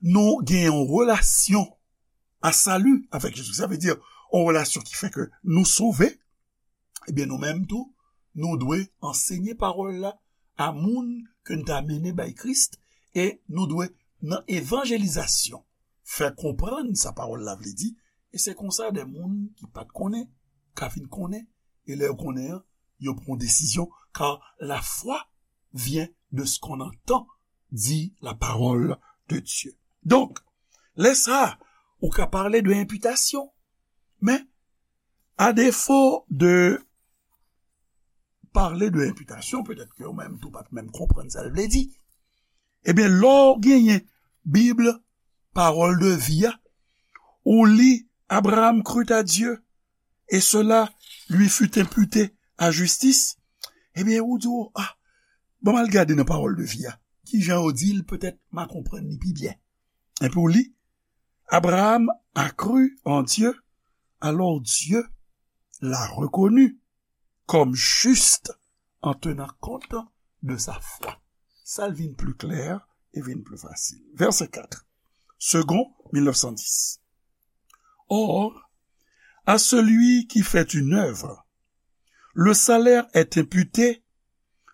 nou gen yon relasyon a sali avèk Jezi. Sa vle di, yon relasyon ki fè ke nou sove, ebyen, nou menm tou, nou dwe ansenye pawòl la a moun ke n ta mennen bay Kris, e nou dwe, nan evanjelizasyon, fè konprann sa pawòl la vle di, e se konsa de moun ki pa t konnen, ka vin konnen, e lè yo konnen an, yo pran desizyon, car la foi vient de ce qu'on entend, dit la parole de Dieu. Donk, lè sa, ou ka pale de enpitasyon, men, a defo de pale de enpitasyon, petèt ke ou menm tou pa t menm konprann sa l vle di. Ebyen, lè w genyen Bib, pawòl de vi a, ou li Abraham crut à Dieu, et cela lui fut imputé à justice, ebyen, ou di, oh, ah, ban m al gade nan pawòl de vi a. Kijan yo di l, petèt m a konprann li pi byen. Epi w li, Abraham a cru en Dieu, alors Dieu l'a reconnu comme juste en tenant compte de sa foi. Sa l vin pli klè e vin pli fasil. Verset quatre. Segond mil nèf san dis. Or, à celui qui fait une œuvre, le salaire est imputé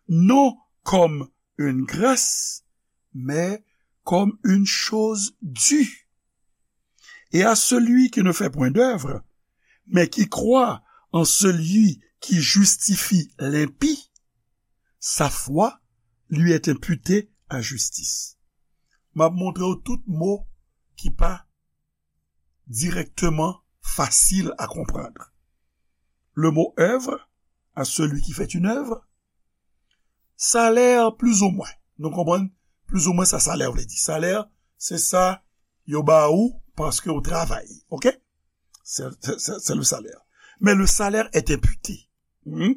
non comme une grâce, mais comme une chose due. Et à celui qui ne fait point d'œuvre, mais qui croit en celui qui justifie l'impie, sa foi lui est imputée à justice. M ap montre w tout mo ki pa directement facile à comprendre. Le mot œuvre, à celui qui fait une œuvre, salè, plizoumwen. Nou konprann plizoumwen sa salè vle di. Salè, se sa yo ba ou paske ou travay. Oke? C'est, c'est, c'est le salaire. Mais le salaire est imputé. Hmm?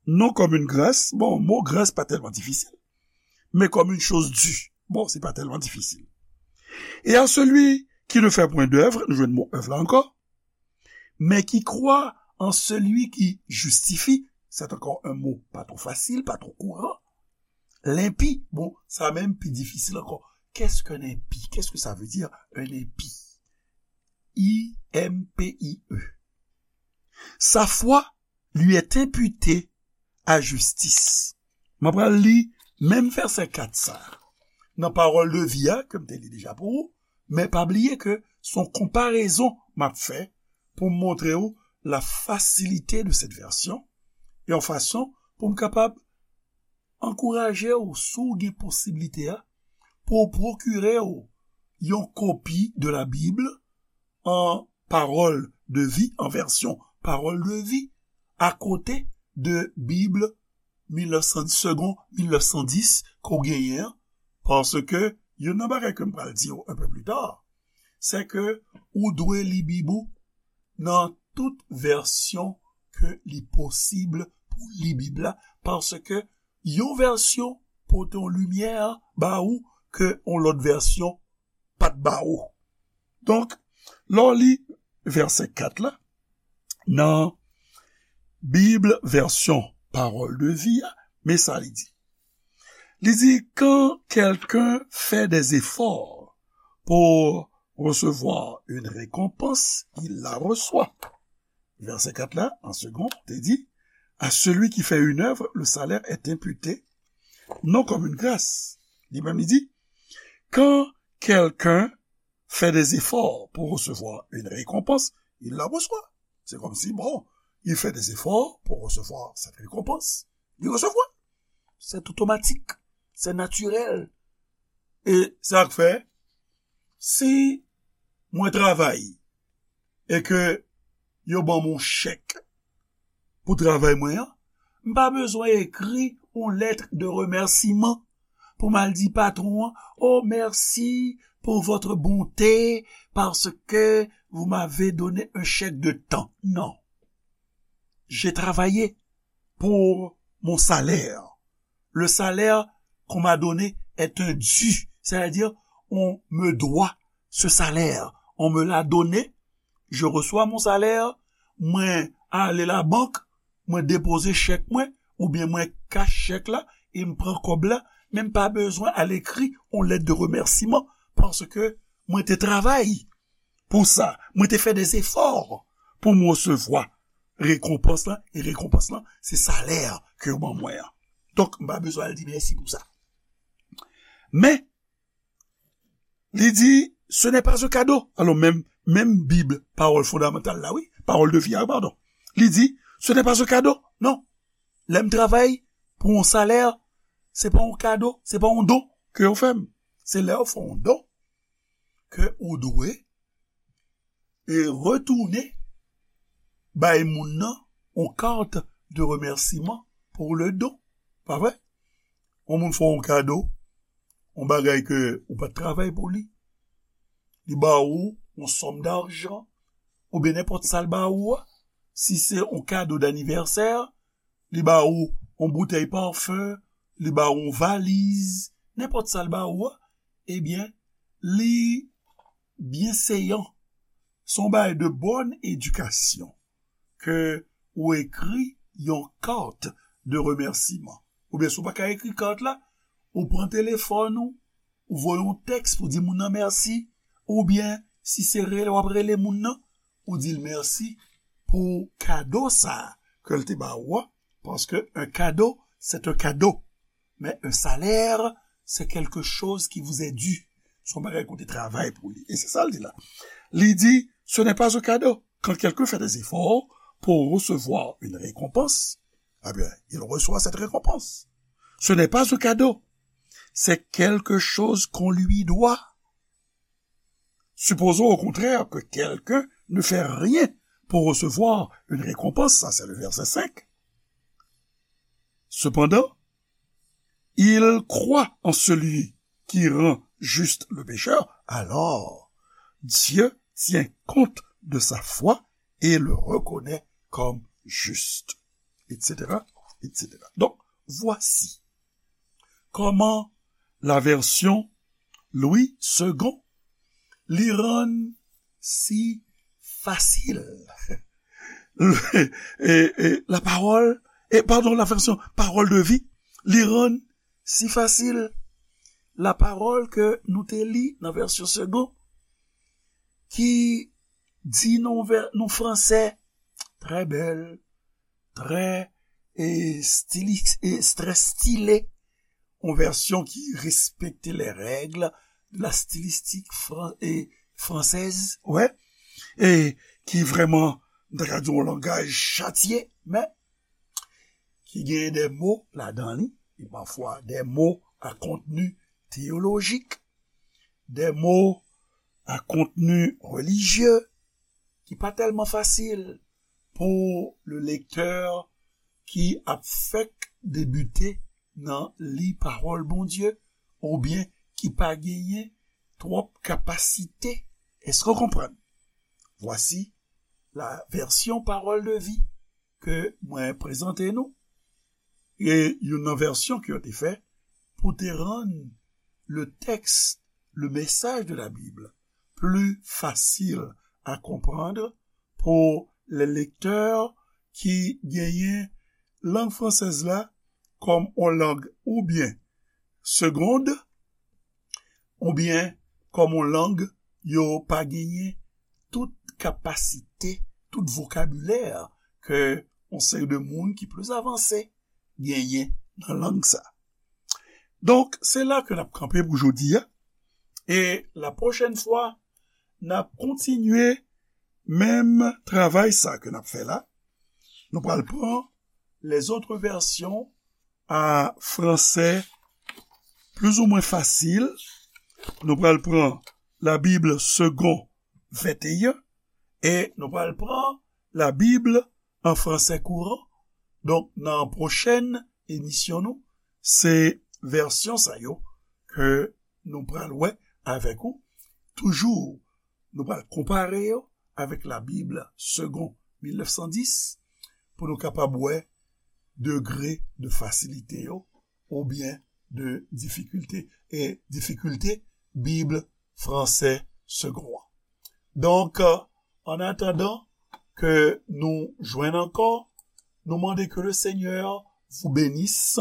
Non comme une grâce. Bon, mo grâce pa tèlman difisil. Mais comme une chose due. Bon, se pa tèlman difisil. Et à celui qui ne fait point d'œuvre, nou jwenn mo œuvre la ankò, mais qui croit en celui qui justifie, c'est encore un mot pas trop facile, pas trop courant. L'impie, bon, sa menm pi difisil ankò. Qu'est-ce qu'un impie? Qu'est-ce que ça veut dire, un impie? I M P I E. Sa foi lui est imputée à justice. Mwen pral li menm vèsè kat sa nan pawòl de vi a ke m te li deja pou ou, men pa bliye ke Se yon konparezon m ap fè pou m montre w la facilité de cette version, e yon fason pou m kapab ankouraje w, si w gen posiblite a, pou w pwokire w yon kopi de la Bible en parole de vie, en version parole de vie, akote de Bib mil nèf san, Segond mil nèf san dis ke w genyen an, paske youn nan bagay ke m pral di w un peu plus tard, se ke ou dwe li Bib ou nan tout vèsyon ke li posib pou li Bib la, paske yon vèsyon pote yon limyè ba ou ke yon lòt vèsyon pa t ba ou. Donk, lè w li vèsè kat la, nan Bib vèsyon Parole de vie a, men sa li di. Li di, quand quelqu'un fait des efforts pour recevoir une récompense, il la reçoit. Vèsè kat la, an segonn, te di, à celui qui fait une œuvre, le salaire est imputé, non comme une grâce. Li menm, li di, quand quelqu'un fait des efforts pour recevoir une récompense, il la reçoit. C'est comme si, bon, il fait des efforts pour recevoir cette récompense. Il reçoit. C'est automatique. C'est naturel. E sa k fè, si mwen travay e ke yo ban m yon chèk pou travay mwen an, m pa bezwen ekri yon lèt de remèsiman pou m al di patwon an, oh, merci pour votre bonté, parce que vous m'avez donné un chèque de tant. Non. J'ai travaillé pour mon salaire. Le salaire qu'on m'a donné est un dû, c'est-à-dire on me doit ce salaire. On me l'a donné, je reçois mon salaire, mwen ale labank, mwen depoze chèk mwen, oubyen mwen kach chèk la, e m pran kòb la, men m pa bezwen al ekri yon lèt de remèsiman, paske mwen te travay pou sa, mwen te fè des efforts pou m resevwa rekonpans lan, e rekonpans lan, se salè ke yo ban mwen an. Donk, m pa bezwen al di mèsi pou sa. Men, li di, ce n'est pas un cadeau. Alò, menm, menm Bib, pawòl fondamantal la, wi, pawòl de vi a, padon. Li di, ce n'est pas un cadeau. Non. Lè m travay pou yon salè, se pa yon kado, se pa yon don ke yo fè m. Se lè yo fè yon don ke ou dwe e retounen bay moun nan yon kat de remèsiman pou le don. Pa vre? Yon moun fè w yon kado, yon bagay ke ou pa t travay pou li. Li ba ou yon sòm dajan, oubyen nenpòt sa l ba ou a. Si se yon kado danivèsè, li ba ou yon boutèy pafen, li ba ou yon valiz, nenpòt sa l ba ou a, ebyen, li byenseyan. Se yon bagay de bòn edikasyon ke ou ekri yon kat de remèsiman. Oubyen si w pa ka ekri kat la, ou pran telefòn ou, ou voye yon tèks pou di moun nan mèsi, oubyen si se rele w ap rele moun nan, ou di l mèsi pou kado sa a ke l te ba ou a, paske un cadeau, c'est un cadeau. Mais un salaire, c'est quelque chose qui vous est dû. Se yon bagay ke w te travay pou li. E se sa l di la. Li di, ce n'est pas un cadeau. Quand quelqu'un fait des efforts pour recevoir une récompense, eh bien, il reçoit cette récompense. Ce n'est pas un cadeau. C'est quelque chose qu'on lui doit. Supposons au contraire que quelqu'un ne fait rien pour recevoir une récompense, ça c'est le verset cinq. Cependant, il croit en celui qui rend juste le pécheur, alors Dieu tient compte de sa foi et le reconnaît comme juste, et cetera, et cetera. Donc, voici comment la version Louis Segond li rann si fasil. E, e, la parole, e, pardon, la version Parole de vie, li rann si fasil. La parole ke nou te li nan vèsyon Segond, ki di nan vè-, nan fransè, trè bèl, trè, e, stilis-, e, trè stile, yon vèsyon ki respekte les règles de la stylistique fran-, e, fransèz, wè, e ki vrèman, m ta ka di, yon langaj chatye, men ki gen de mo ladan li, e pafwa de mo a kontni teyolojik, de mo a kontni relijye, ki pa tèlman fasil pou le lektè ki ap fèk debite nan li pawòl Bondye, oubyen ki pa genyen twòp kapasite. Èske w konprann? Vwasi la vèsyon Pawòl de Vi ke mwen prezante nou. E youn nan vèsyon ke yo te fè pou te rann le texte, le message de la Bible plus facile à comprendre pour les lecteurs ki genyen lang fransèz la kòm yon lang oubyen segonn, oubyen kòm yon lang yo pa genyen tout kapasite, tout vokabilè ke yon seri de moun ki plis avanse genyen nan lang sa. Donk, se la ke n ap kanpe pou jodi a. E la pwochèn fwa, n ap kontinye menm travay sa ke n ap fè la. Nou pral pran les autres versions a fransè plizoumwen fasil. Nou pral pran la Bible Segond venteyen e nou pral pran la Bible an fransè kouran. Donk, nan pwochèn emisyon nou, se vèsyon sa yo ke nou pral wè avèk ou. Toujou, nou pral konpare yo avèk la Bible Segond mil nèf san dis pou nou kapab wè degre de fasilite yo oubyen de difikilte, e difikilte Bib fransè Segond an. Donk, an atandan ke nou jwenn ankò, nou mande ke le Seigneur vous bénisse.